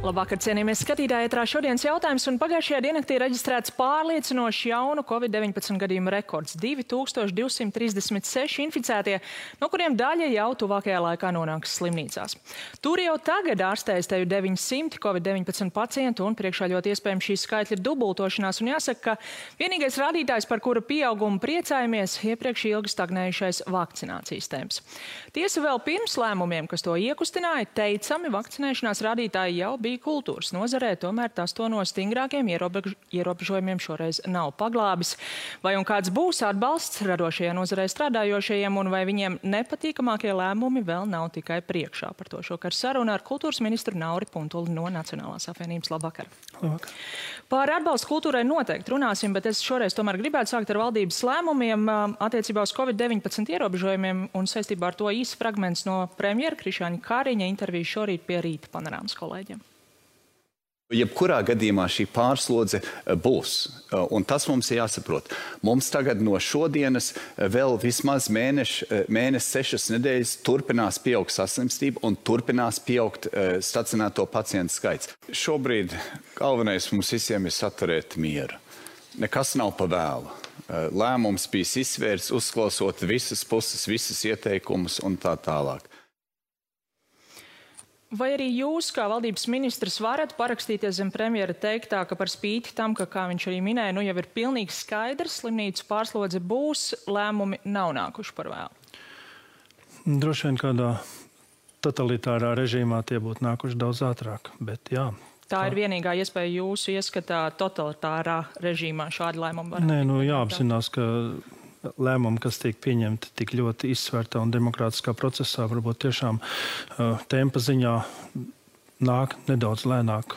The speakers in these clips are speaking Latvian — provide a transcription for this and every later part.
Labvakar, cienījamies skatītāji, ētrā šodienas jautājums, un pagājušajā diennaktī reģistrēts pārliecinoši jaunu Covid-19 gadījumu rekords - 2236 inficētie, no kuriem daļa jau tuvākajā laikā nonāks slimnīcās. Tur jau tagad ārstējas teju 900 Covid-19 pacientu, un priekšā ļoti iespējams šīs skaitļi ir dubultošanās, un jāsaka, ka vienīgais rādītājs, par kura pieaugumu priecājamies, iepriekš ilgi stagnējušais vakcinācijas temps. Tiesa vēl pirms lēmumiem, kas to iekustināja, teicami vakcinēšanās rādītāji jau bija kultūras nozarē, tomēr tas to no stingrākiem ierobežojumiem šoreiz nav paglābis. Vai un kāds būs atbalsts radošajā nozarē strādājošajiem, un vai viņiem nepatīkamākie lēmumi vēl nav tikai priekšā? Par to šokar saruna ar kultūras ministru Nauri Puntuli no Nacionālās apvienības. Labvakar. Labvakar. Par atbalstu kultūrai noteikti runāsim, bet es šoreiz tomēr gribētu sākt ar valdības lēmumiem attiecībā uz Covid-19 ierobežojumiem, un saistībā ar to īsts fragments no premjera Krišjāņa Kariņa intervijas šorīt pie Rīta panorāmas kolēģiem. Jebkurā gadījumā šī pārslodze būs, un tas mums ir jāsaprot. Mums tagad no šodienas vēl vismaz mēnesis, 6 nedēļas turpinās pieaugt saslimstība un turpinās pieaugt stacionēto pacientu skaits. Šobrīd galvenais mums visiem ir saturēt mieru. Nekas nav pa vēlu. Lēmums bija izsvērts, uzklausot visas puses, visas ieteikumus un tā tālāk. Vai arī jūs, kā valdības ministrs, varat parakstīties zem premjera teiktā, ka par spīti tam, ka, kā viņš arī minēja, nu jau ir pilnīgi skaidrs, slimnīcu pārslodze būs, lēmumi nav nākuši par vēlu? Droši vien kādā totalitārā režīmā tie būtu nākuši daudz ātrāk, bet jā. Tā ir vienīgā iespēja jūsu ieskatā totalitārā režīmā šādi lēmumi var? Nē, nu jāapzinās, ka lēmumi, kas tiek pieņemti tik ļoti izsvērtā un demokrātiskā procesā, varbūt tiešām tempa ziņā nāk nedaudz lēnāk.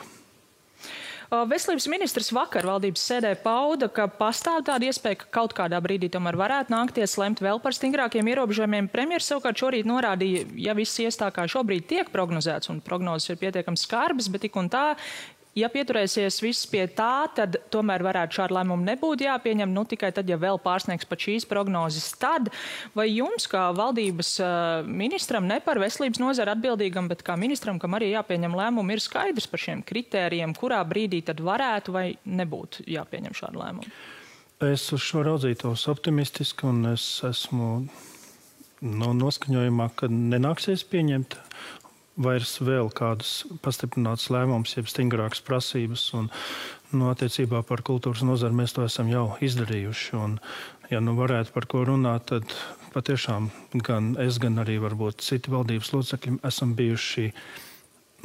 Veselības ministrs vakar valdības sēdē pauda, ka pastāv tāda iespēja, ka kaut kādā brīdī tomēr varētu nākties lemt vēl par stingrākiem ierobežojumiem. Premjers savukārt šorīt norādīja, ja viss ies tā kā šobrīd tiek prognozēts, un prognozes ir pietiekami skarbas, bet tik un tā, ja pieturēsies viss pie tā, tad tomēr varētu šādu lēmumu nebūt jāpieņem, nu tikai tad, ja vēl pārsniegs pat šīs prognozes. Tad, vai jums, kā valdības ministram, ne par veselības nozari atbildīgam, bet kā ministram, kam arī jāpieņem lēmumu, ir skaidrs par šiem kritērijiem, kurā brīdī tad varētu vai nebūtu jāpieņem šādu lēmumu? Es uz šo raudzītos optimistiski, un es esmu noskaņojumā, ka nenāksies pieņemt vairs vēl kādas pastiprinātas lēmumus, jeb stingrākas prasības. Un, attiecībā par kultūras nozari mēs to esam jau izdarījuši. Un, ja varētu par ko runāt, tad patiešām gan es, gan arī varbūt citi valdības locekļi esam bijuši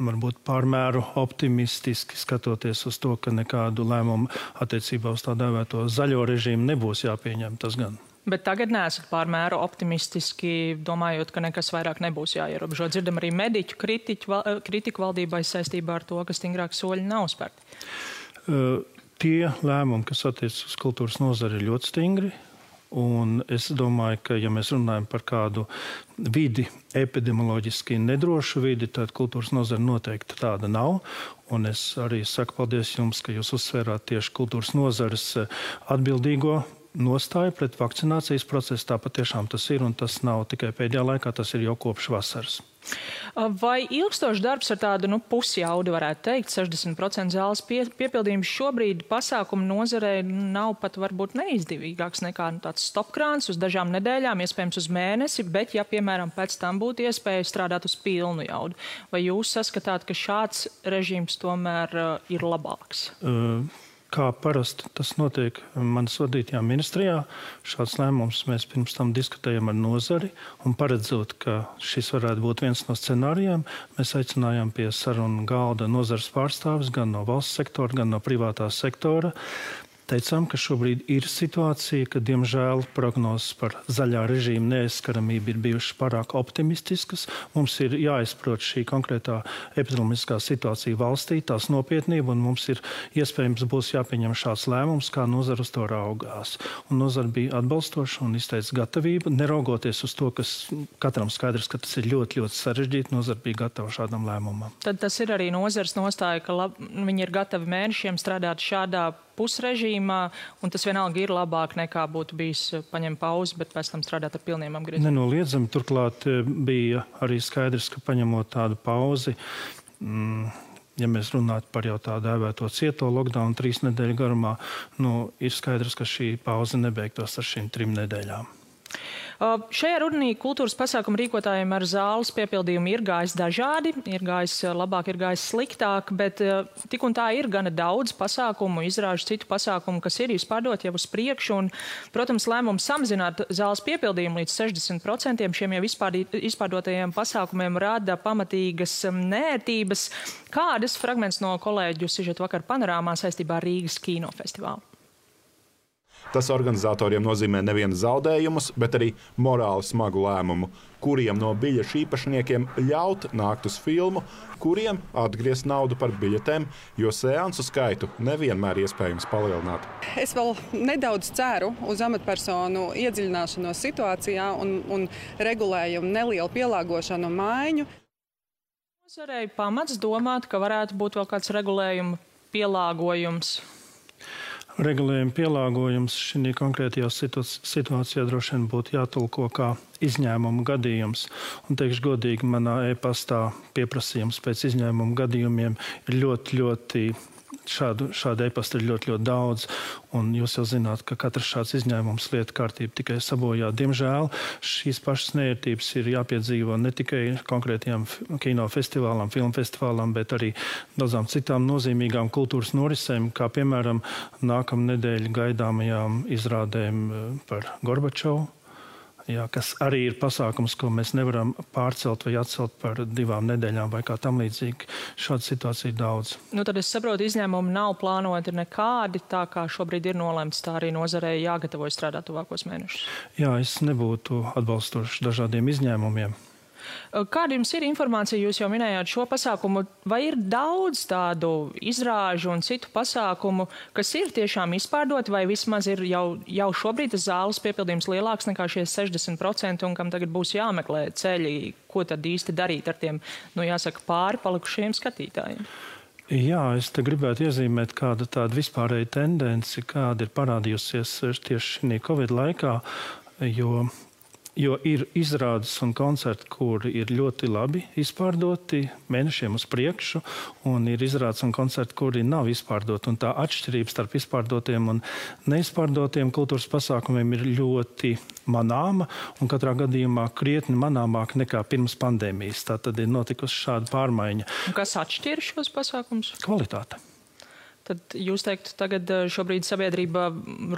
varbūt pārmēru optimistiski skatoties uz to, ka nekādu lēmumu attiecībā uz tā dēvēto zaļo režīmu nebūs jāpieņem, tas gan. Bet tagad neesat pārmēru optimistiski, domājot, ka nekas vairāk nebūs jāierobežo. Dzirdam arī mediķu kritiku valdībai saistībā ar to, ka stingrāki soļi nav spērti. Tie lēmumi, kas attiec uz kultūras nozari, ir ļoti stingri. Un es domāju, ka, ja mēs runājam par kādu vidi, epidemioloģiski nedrošu vidi, tad kultūras nozara noteikti tāda nav. Un es arī saku paldies jums, ka jūs uzsvērāt tieši kultūras nozares atbildīgo nostāju pret vakcinācijas procesu. Tā patiešām tas ir, un tas nav tikai pēdējā laikā, tas ir jau kopš vasaras. Vai ilgstošs darbs ar tādu pusjaudu, varētu teikt, 60% zāles piepildījums šobrīd pasākumu nozarē nav pat varbūt neizdevīgāks nekā tāds stopkrāns uz dažām nedēļām, iespējams uz mēnesi, bet ja, piemēram, pēc tam būtu iespēja strādāt uz pilnu jaudu, vai jūs saskatāt, ka šāds režīms tomēr ir labāks? Kā parasti tas notiek manas vadītajā ministrijā, šāds lēmums mēs pirms tam diskutējam ar nozari, un paredzot, ka šis varētu būt viens no scenārijiem, mēs aicinājām pie sarunu galda nozares pārstāvis gan no valsts sektora, gan no privātā sektora. Teicām, ka šobrīd ir situācija, ka, diemžēl, prognozes par zaļā režīma neaizskaramību ir bijušas pārāk optimistiskas. Mums ir jāizprot šī konkrētā epidemioloģiskā situācija valstī, tās nopietnība, un mums ir iespējams būs jāpieņem šāds lēmums, kā nozara uz to raugās. Un nozara bija atbalstoša un izteica gatavību, neraugoties uz to, kas katram skaidrs, ka tas ir ļoti, ļoti sarežģīti, nozara bija gatava šādam lēmumam. Tad tas ir arī nozares nostāja, ka viņi ir gatavi mēnešiem strādāt šādā pusrežīmā, un tas vienalga ir labāk nekā būtu bijis paņemt pauzi, bet pēc tam strādāt ar pilniem apgriezumiem. Nenoliedzami, turklāt bija arī skaidrs, ka paņemot tādu pauzi, ja mēs runātu par jau tā dēvēto cieto lockdown 3 nedēļu garumā, ir skaidrs, ka šī pauze nebeigtos ar šīm 3 nedēļām. Šajā rudenī kultūras pasākumu rīkotājiem ar zāles piepildījumu ir gājis dažādi, ir gājis labāk, ir gājis sliktāk, bet tik un tā ir gana daudz pasākumu, izrāžu citu pasākumu, kas ir izpārdot jau uz priekšu. Un, protams, lēmums samazināt zāles piepildījumu līdz 60% šiem jau izpārdotajiem pasākumiem rada pamatīgas nērtības. Kādas fragments no kolēģu sižeta vakar panorāmā saistībā ar Rīgas kinofestivālu? Tas organizatoriem nozīmē nevienu zaudējumus, bet arī morāli smagu lēmumu, kuriem no biļešu īpašniekiem ļaut nākt uz filmu, kuriem atgriezt naudu par biļetēm, jo seansu skaitu nevienmēr iespējams palielināt. Es vēl nedaudz ceru uz amatpersonu iedziļināšanos situācijā un regulējumu nelielu pielāgošanu un maiņu. Nozarei pamats domāt, ka varētu būt vēl kāds regulējuma pielāgojums. Regulējuma pielāgojums šī konkrētajā situācijā droši vien būtu jātulko kā izņēmumu gadījums. Un teikšu godīgi, manā e-pastā pieprasījums pēc izņēmumu gadījumiem ir ļoti šādu e-pastu ir ļoti daudz. Un jūs jau zināt, ka katrs šāds izņēmums lietu kārtību tikai sabojā. Diemžēl šīs pašas nērtības ir jāpiedzīvo ne tikai konkrētajām kinofestivālām, filmfestivālām, bet arī daudzām citām nozīmīgām kultūras norisēm, kā piemēram nākamnedēļ gaidāmajām izrādēm par Gorbačovu. Jā, kas arī ir pasākums, ko mēs nevaram pārcelt vai atcelt par 2 nedēļām vai kā tam līdzīgi. Šāda situācija ir daudz. Tad es saprotu, izņēmumi nav plānoti nekādi, tā kā šobrīd ir nolemts, tā arī nozarei jāgatavojas strādāt tuvākos mēnešus. Jā, es nebūtu atbalstošs dažādiem izņēmumiem. Kāda jums ir informācija, jūs jau minējāt šo pasākumu, vai ir daudz tādu izrāžu un citu pasākumu, kas ir tiešām izpārdoti, vai vismaz ir jau šobrīd tas zāles piepildījums lielāks nekā šie 60% un kam tagad būs jāmeklē ceļi, ko tad īsti darīt ar tiem, jāsaka, pāri palikušiem skatītājiem? Jā, es te gribētu iezīmēt kādu tādu vispārēju tendenci, kāda ir parādījusies tieši šī Covid laikā, jo ir izrādes un koncerti, kuri ir ļoti labi izpārdoti mēnešiem uz priekšu, un ir izrādes un koncerti, kuri nav izpārdoti. Un tā atšķirība starp izpārdotiem un neizpārdotiem kultūras pasākumiem ir ļoti manāma, un katrā gadījumā krietni manāmāk nekā pirms pandēmijas. Tā tad ir notikusi šāda pārmaiņa. Un kas atšķir šos pasākumus? Kvalitāte. Tad jūs teiktu, tagad šobrīd sabiedrība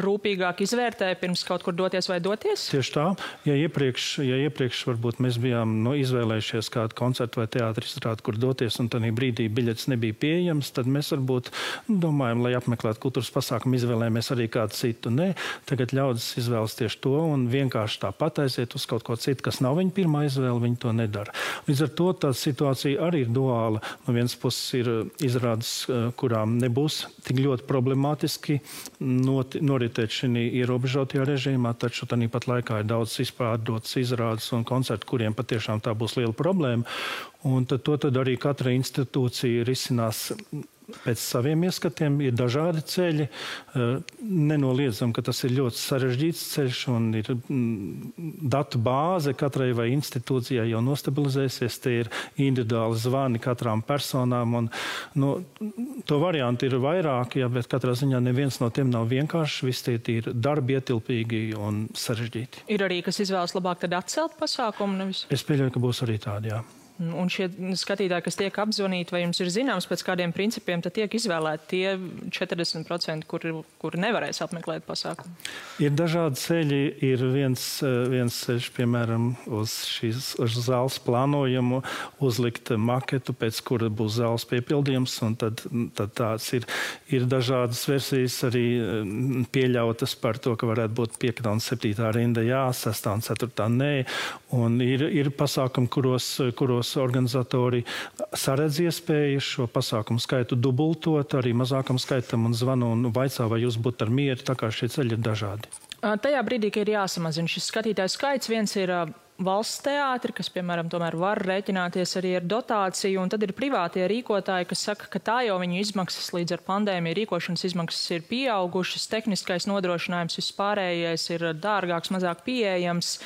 rūpīgāk izvērtē pirms kaut kur doties vai doties? Tieši tā. Ja iepriekš varbūt mēs bijām izvēlējušies kādu koncertu vai teātri izrādi, kur doties, un tādā brīdī biļetes nebija pieejams, tad mēs varbūt domājam, lai apmeklētu kultūras pasākumu, izvēlējamies arī kādu citu. Nē, tagad ļaudis izvēlas tieši to un vienkārši tāpat aiziet uz kaut ko citu, kas nav viņa pirmā izvēle, viņi to nedara. Līdz ar to tā situācija arī ir duāla. No vienas puses ir izrādes, kurām nebūs tik ļoti problemātiski noritēt šī ierobežotajā režīmā, taču tāpat laikā ir daudz izpārdotas izrādes un koncerti, kuriem patiešām tā būs liela problēma. Un to arī katra institūcija risinās pēc saviem ieskatiem. Ir dažādi ceļi. Nenoliedzam, ka tas ir ļoti sarežģīts ceļš un ir datu bāze katrai vai institūcijai jau nostabilizēsies. Te ir individuāli zvani katrām personām. Un, to variantu ir vairāk, bet katrā ziņā neviens no tiem nav vienkāršs. Visi tie ir darbi ietilpīgi un sarežģīti. Ir arī, kas izvēlas labāk tad atcelt pasākumu? Nevis? Es pieļauju, ka būs arī tādi, jā. Un šie skatītāji, kas tiek apzvanīti, vai jums ir zināms, pēc kādiem principiem tad tiek izvēlēti tie 40%, kuri nevarēs apmeklēt pasākumu? Ir dažādi ceļi. Ir viens ceļš, piemēram, uz zāles plānojumu uzlikt maketu, pēc kura būs zāles piepildījums, un tad tāds ir. Ir dažādas versijas arī pieļautas par to, ka varētu būt 5. un 7. rinda jā, 6. un 4. nē. Un ir pasākumi, kuros organizatori saredz iespēju šo pasākumu skaitu dubultot arī mazākam skaitam un zvanu un vaicā, vai jūs būtu ar mieru, tā kā šie ceļi ir dažādi. Tajā brīdī, ka ir jāsamazina šis skatītāju skaits, viens ir valsts teātri, kas, piemēram, tomēr var rēķināties arī ar dotāciju, un tad ir privātie rīkotāji, kas saka, ka tā jau viņu izmaksas līdz ar pandēmiju rīkošanas izmaksas ir pieaugušas, tehniskais nodrošinājums vispārējais ir dārgāks, mazāk pieejams.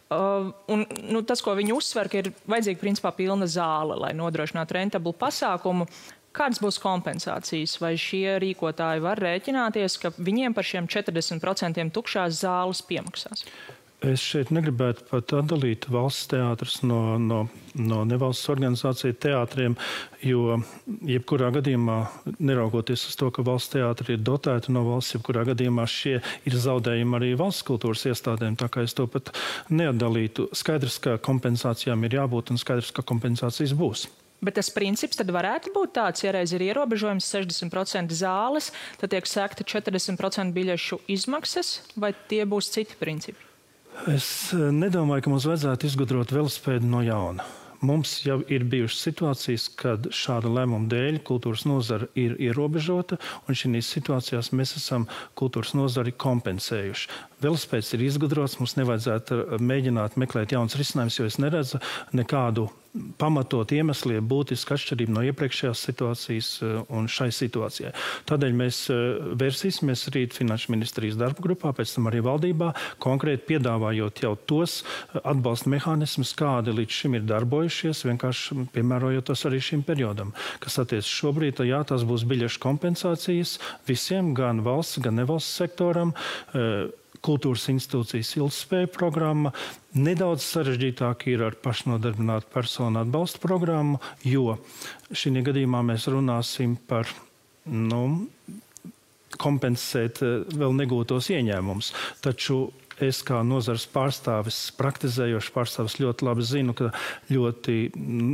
Tas, ko viņi uzsver, ka ir vajadzīga principā pilna zāle, lai nodrošinātu rentablu pasākumu. Kādas būs kompensācijas? Vai šie rīkotāji var rēķināties, ka viņiem par šiem 40% tukšās zāles piemaksās? Es šeit negribētu pat atdalīt valsts teātrus no nevalsts organizāciju teātriem, jo jebkurā gadījumā, neraugoties uz to, ka valsts teātri ir dotēti no valsts, jebkurā gadījumā šie ir zaudējumi arī valsts kultūras iestādēm, tā kā es to pat neatdalītu. Skaidrs, ka kompensācijām ir jābūt un skaidrs, ka kompensācijas būs. Bet tas princips tad varētu būt tāds, ja reiz ir ierobežojums 60% zāles, tad tiek sekta 40% biļešu izmaksas, vai tie būs citi principi? Es nedomāju, ka mums vajadzētu izgudrot velospēdu no jauna. Mums jau ir bijušas situācijas, kad šāda lēmuma dēļ kultūras nozara ir ierobežota, un šīs situācijās mēs esam kultūras nozari kompensējuši. Velospēds ir izgudrots, mums nevajadzētu mēģināt meklēt jaunas risinājumus, jo es neredzu nekādu pamatot iemesli būtiski atšķirību no iepriekšējās situācijas un šai situācijai. Tādēļ mēs vērsīsimies rīt Finanšu ministrijas darba grupā, pēc tam arī valdībā, konkrēti piedāvājot jau tos atbalsta mehānismus, kādi līdz šim ir darbojušies, vienkārši piemērojot tos arī šim periodam. Kas attiec šobrīd, jā, tās būs biļešu kompensācijas visiem, gan valsts, gan nevalsts sektoram, kultūras institūcijas ilgtspēja programma. Nedaudz sarežģītāk ir ar pašnodarbinātu personu atbalsta programmu, jo šī gadījumā mēs runāsim par kompensēt vēl negūtos ieņēmumus. Taču es kā nozares pārstāvis, praktizējošs pārstāvis ļoti labi zinu, ka ļoti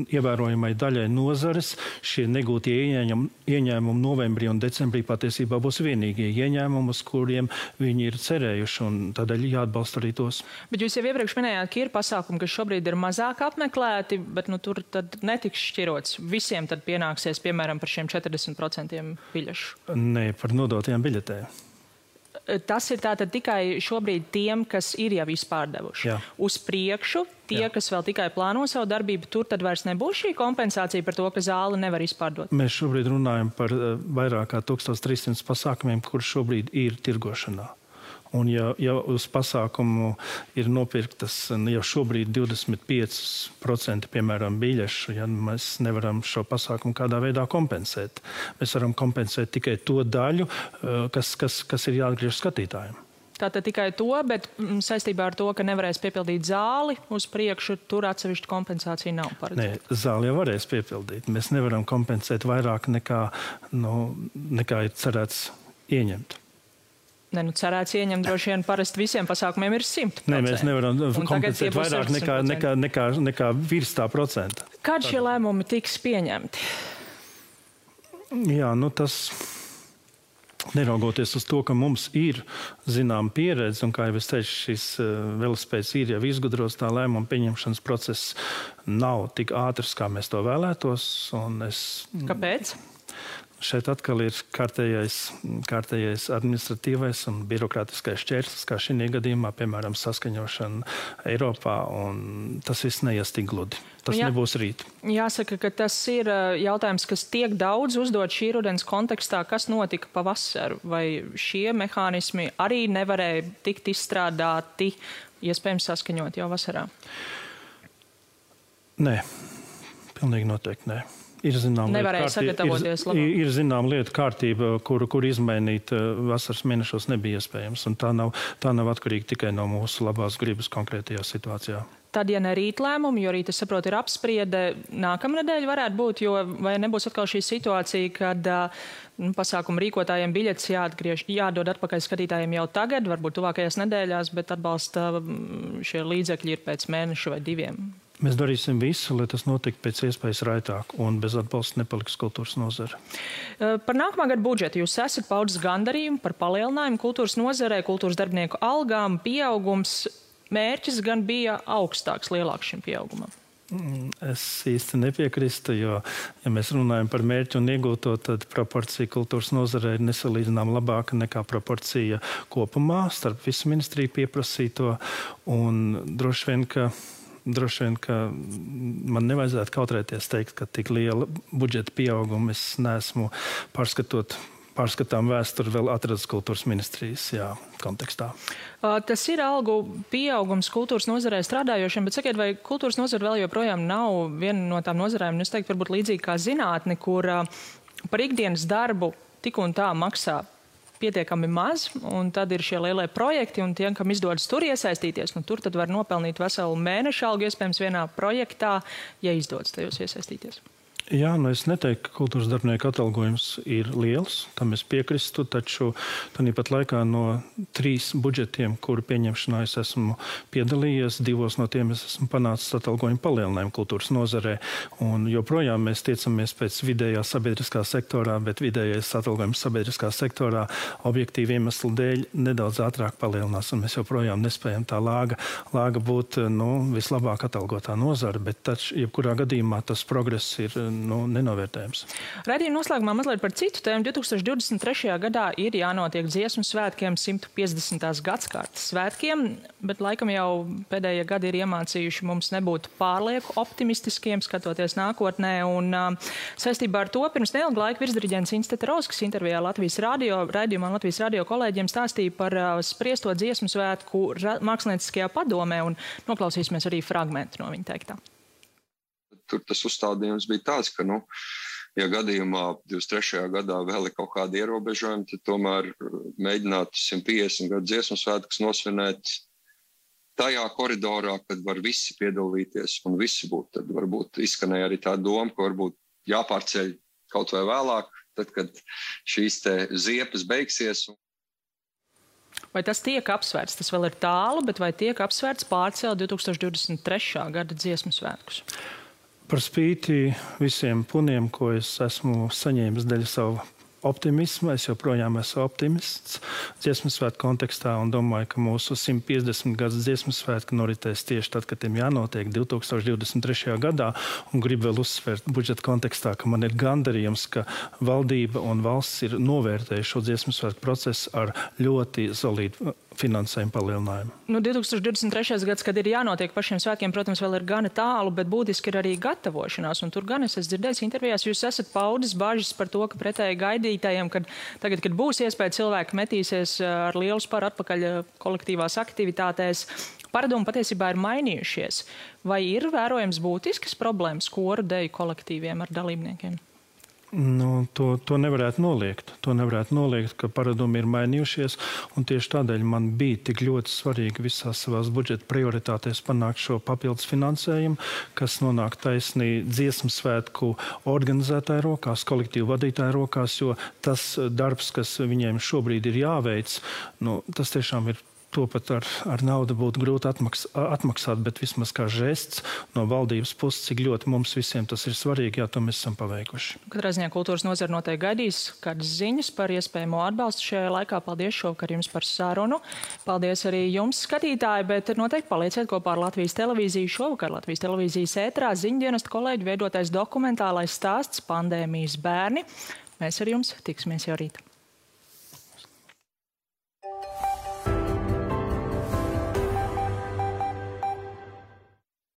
ievērojamai daļai nozares šie negūtie ieņēmumi novembrī un decembrī patiesībā būs vienīgie ieņēmumi, uz kuriem viņi ir cerējuši, un tādēļ jāatbalsta arī tos. Bet jūs jau iepriekš minējāt, ka ir pasākumi, kas šobrīd ir mazāk apmeklēti, bet tur tad netiks šķirots. Visiem tad pienāksies, piemēram, par šiem 40% biļešu? Nē, par nodotajām biļetēm. Tas ir tātad tikai šobrīd tiem, kas ir jau izpārdevuši. Jā. Uz priekšu, tie, kas vēl tikai plāno savu darbību, tur tad vairs nebūs šī kompensācija par to, ka zāli nevar izpārdot? Mēs šobrīd runājam par vairāk kā 1300 pasākumiem, kur šobrīd ir tirgošanā. Un ja uz pasākumu ir nopirktas jau šobrīd 25% piemēram biļešu, ja mēs nevaram šo pasākumu kādā veidā kompensēt. Mēs varam kompensēt tikai to daļu, kas ir jāatgriež skatītājiem. Tātad tikai to, bet saistībā ar to, ka nevarēs piepildīt zāli uz priekšu, tur atsevišķa kompensācija nav paredzēta. Nē, zāli jau varēs piepildīt. Mēs nevaram kompensēt vairāk nekā ir cerēts ieņemt. Cerēts ieņemt droši vien parasti visiem pasākumiem ir 100%. Nē, mēs nevaram kompensēt vairāk nekā virs tā procenta. Kad šie lēmumi tiks pieņemti? Jā, tas neraugoties uz to, ka mums ir zinām pieredze, un kā jau es teicu, šis velospēds ir jau izgudros, tā lēmuma pieņemšanas process nav tik ātrs, kā mēs to vēlētos. Kāpēc? Šeit atkal ir kārtējais administratīvais un birokrātiskais šķērslis, kā šī gadījumā, piemēram, saskaņošana Eiropā, un tas viss neies tik gludi. Tas nebūs rīt. Jāsaka, ka tas ir jautājums, kas tiek daudz uzdot šī rudens kontekstā, kas notika pavasaru, vai šie mehānismi arī nevarēja tikt izstrādāti, iespējams saskaņot jau vasarā? Nē, pilnīgi noteikti nē. Nevarēja sagatavoties labāk. Ir zinām lietu kārtība, kuru izmainīt vasaras mēnešos nebija iespējams. Un tā nav atkarīga tikai no mūsu labās gribas konkrētajā situācijā. Tad, ja ne rīt lēmumi, jo rīt, es saprotu, ir apspriede, nākamnedēļ varētu būt, vai nebūs atkal šī situācija, kad pasākumu rīkotājiem biļetes jādod atpakaļ skatītājiem jau tagad, varbūt tuvākajās nedēļās, bet atbalsta šie līdzekļi ir pēc mēneša vai 2. Mēs darīsim visu, lai tas notiktu pēc iespējas raitāk un bez atbalsta nepaliks kultūras nozare. Par nākamā gada budžetu jūs esat paudis gandarījumu par palielinājumu kultūras nozarei, kultūras darbinieku algām, pieaugums. Mērķis gan bija augstāks, lielāks šim pieaugumam. Es īsti nepiekrīstu, jo, ja mēs runājam par mērķu un iegūto, tad proporcija kultūras nozarei ir nesalīdzinām labāka nekā proporcija kopumā starp visu ministriju pieprasīto, un droši vien, ka man nevajadzētu kautrēties teikt, ka tik liela budžeta pieauguma es neesmu pārskatām vēsturi vēl atradas kultūras ministrijas kontekstā. Tas ir algu pieaugums kultūras nozarē strādājošiem, bet sakiet, vai kultūras nozara vēl joprojām nav viena no tām nozarēm, es teiktu, varbūt līdzīgi kā zinātne, kur par ikdienas darbu tik un tā maksā pietiekami maz, un tad ir šie lielie projekti, un tiem, kam izdodas tur iesaistīties, tur tad var nopelnīt veselu mēnešu algu, iespējams, vienā projektā, ja izdodas tajos iesaistīties. Jā, es neteiktu, ka kultūras darbinieku atalgojums ir liels, tam es piekristu, taču tāpat laikā no 3 budžetiem, kuru pieņemšanā es esmu piedalījies, 2 no tiem es esmu panācis atalgojumu palielinājumu kultūras nozarē, un joprojām mēs tiecamies pēc vidējā sabiedriskā sektorā, bet vidējais atalgojums sabiedriskā sektorā objektīvi iemeslu dēļ nedaudz ātrāk palielinās, un mēs joprojām nespējam tā lāga būt vislabāk atalgotā nozara, bet taču jebkurā gadījumā tas progress ir nenovērtējams. Raidījuma noslēgumā mazliet par citu tēmu. 2023. gadā ir jānotiek Dziesmu svētkiem 150. gadskārtas svētkiem, bet laikam jau pēdējie gadi ir iemācījuši mums nebūt pārlieku optimistiskiem, skatoties nākotnē. Un saistībā ar to pirms neilga laika virsdiriģents Inns Teterovskis intervijā raidījumā Latvijas radio kolēģiem stāstīja par spriesto Dziesmu svētku mākslinieckajā padomē, un noklausīsimies arī fragmentu no viņa teiktā. Tur tas uzstādījums bija tāds, ka, ja gadījumā 23. gadā vēl ir kaut kādi ierobežojumi, tad tomēr mēģināt 150 gadu Dziesmu svētkus nosvinēt tajā koridorā, kad var visi piedalīties un visi būt. Tad varbūt izskanēja arī tā doma, ka varbūt jāpārceļ kaut vai vēlāk, tad, kad šīs te ziepes beigsies. Vai tas tiek apsvērts? Tas vēl ir tālu, bet vai tiek apsvērts pārcelt 2023. gada Dziesmu svētkus? Par spīti visiem puniem, ko es esmu saņēmis dēļ savu optimismu, es joprojām esmu optimists Dziesmu svētku kontekstā un domāju, ka mūsu 150 gadus Dziesmu svētku noritēs tieši tad, kad tiem jānotiek 2023. gadā. Un gribu vēl uzsvērt budžeta kontekstā, ka man ir gandarījums, ka valdība un valsts ir novērtējuši šo Dziesmu svētku procesu ar ļoti solīdu finansējumu palielinājumu. 2023. gads, kad ir jānotiek pašiem svētkiem, protams, vēl ir gana tālu, bet būtiski ir arī gatavošanās. Un tur gan es esmu dzirdējis intervijās, jūs esat paudis bažas par to, ka pretēji gaidītājiem, kad tagad, kad būs iespēja cilvēki metīsies ar lielu sparu atpakaļ kolektīvās aktivitātēs, paradumi patiesībā ir mainījušies. Vai ir vērojams būtiskas problēmas koru deju kolektīviem ar dalībniekiem? To nevarētu noliegt. To nevarētu noliegt, ka paradumi ir mainījušies, un tieši tādēļ man bija tik ļoti svarīgi visās savās budžeta prioritātēs panākt šo papildus finansējumu, kas nonāk taisnī Dziesmu svētku organizētāju rokās, kolektīvu vadītāju rokās, jo tas darbs, kas viņiem šobrīd ir jāveic, tas tiešām ir. To pat ar naudu būtu grūti atmaksāt, bet vismaz kā žests no valdības puses, cik ļoti mums visiem tas ir svarīgi, to mēs esam paveikuši. Katrā ziņā kultūras nozara noteikti gaidīs kādas ziņas par iespējamo atbalstu šajā laikā. Paldies šovakar jums par sarunu. Paldies arī jums, skatītāji, bet noteikti palieciet kopā ar Latvijas televīziju. Šovakar Latvijas televīzijas ētrā ziņdienesta kolēģi veidotais dokumentālais stāsts Pandēmijas bērni. Mēs ar jums tiksimies jau rīt.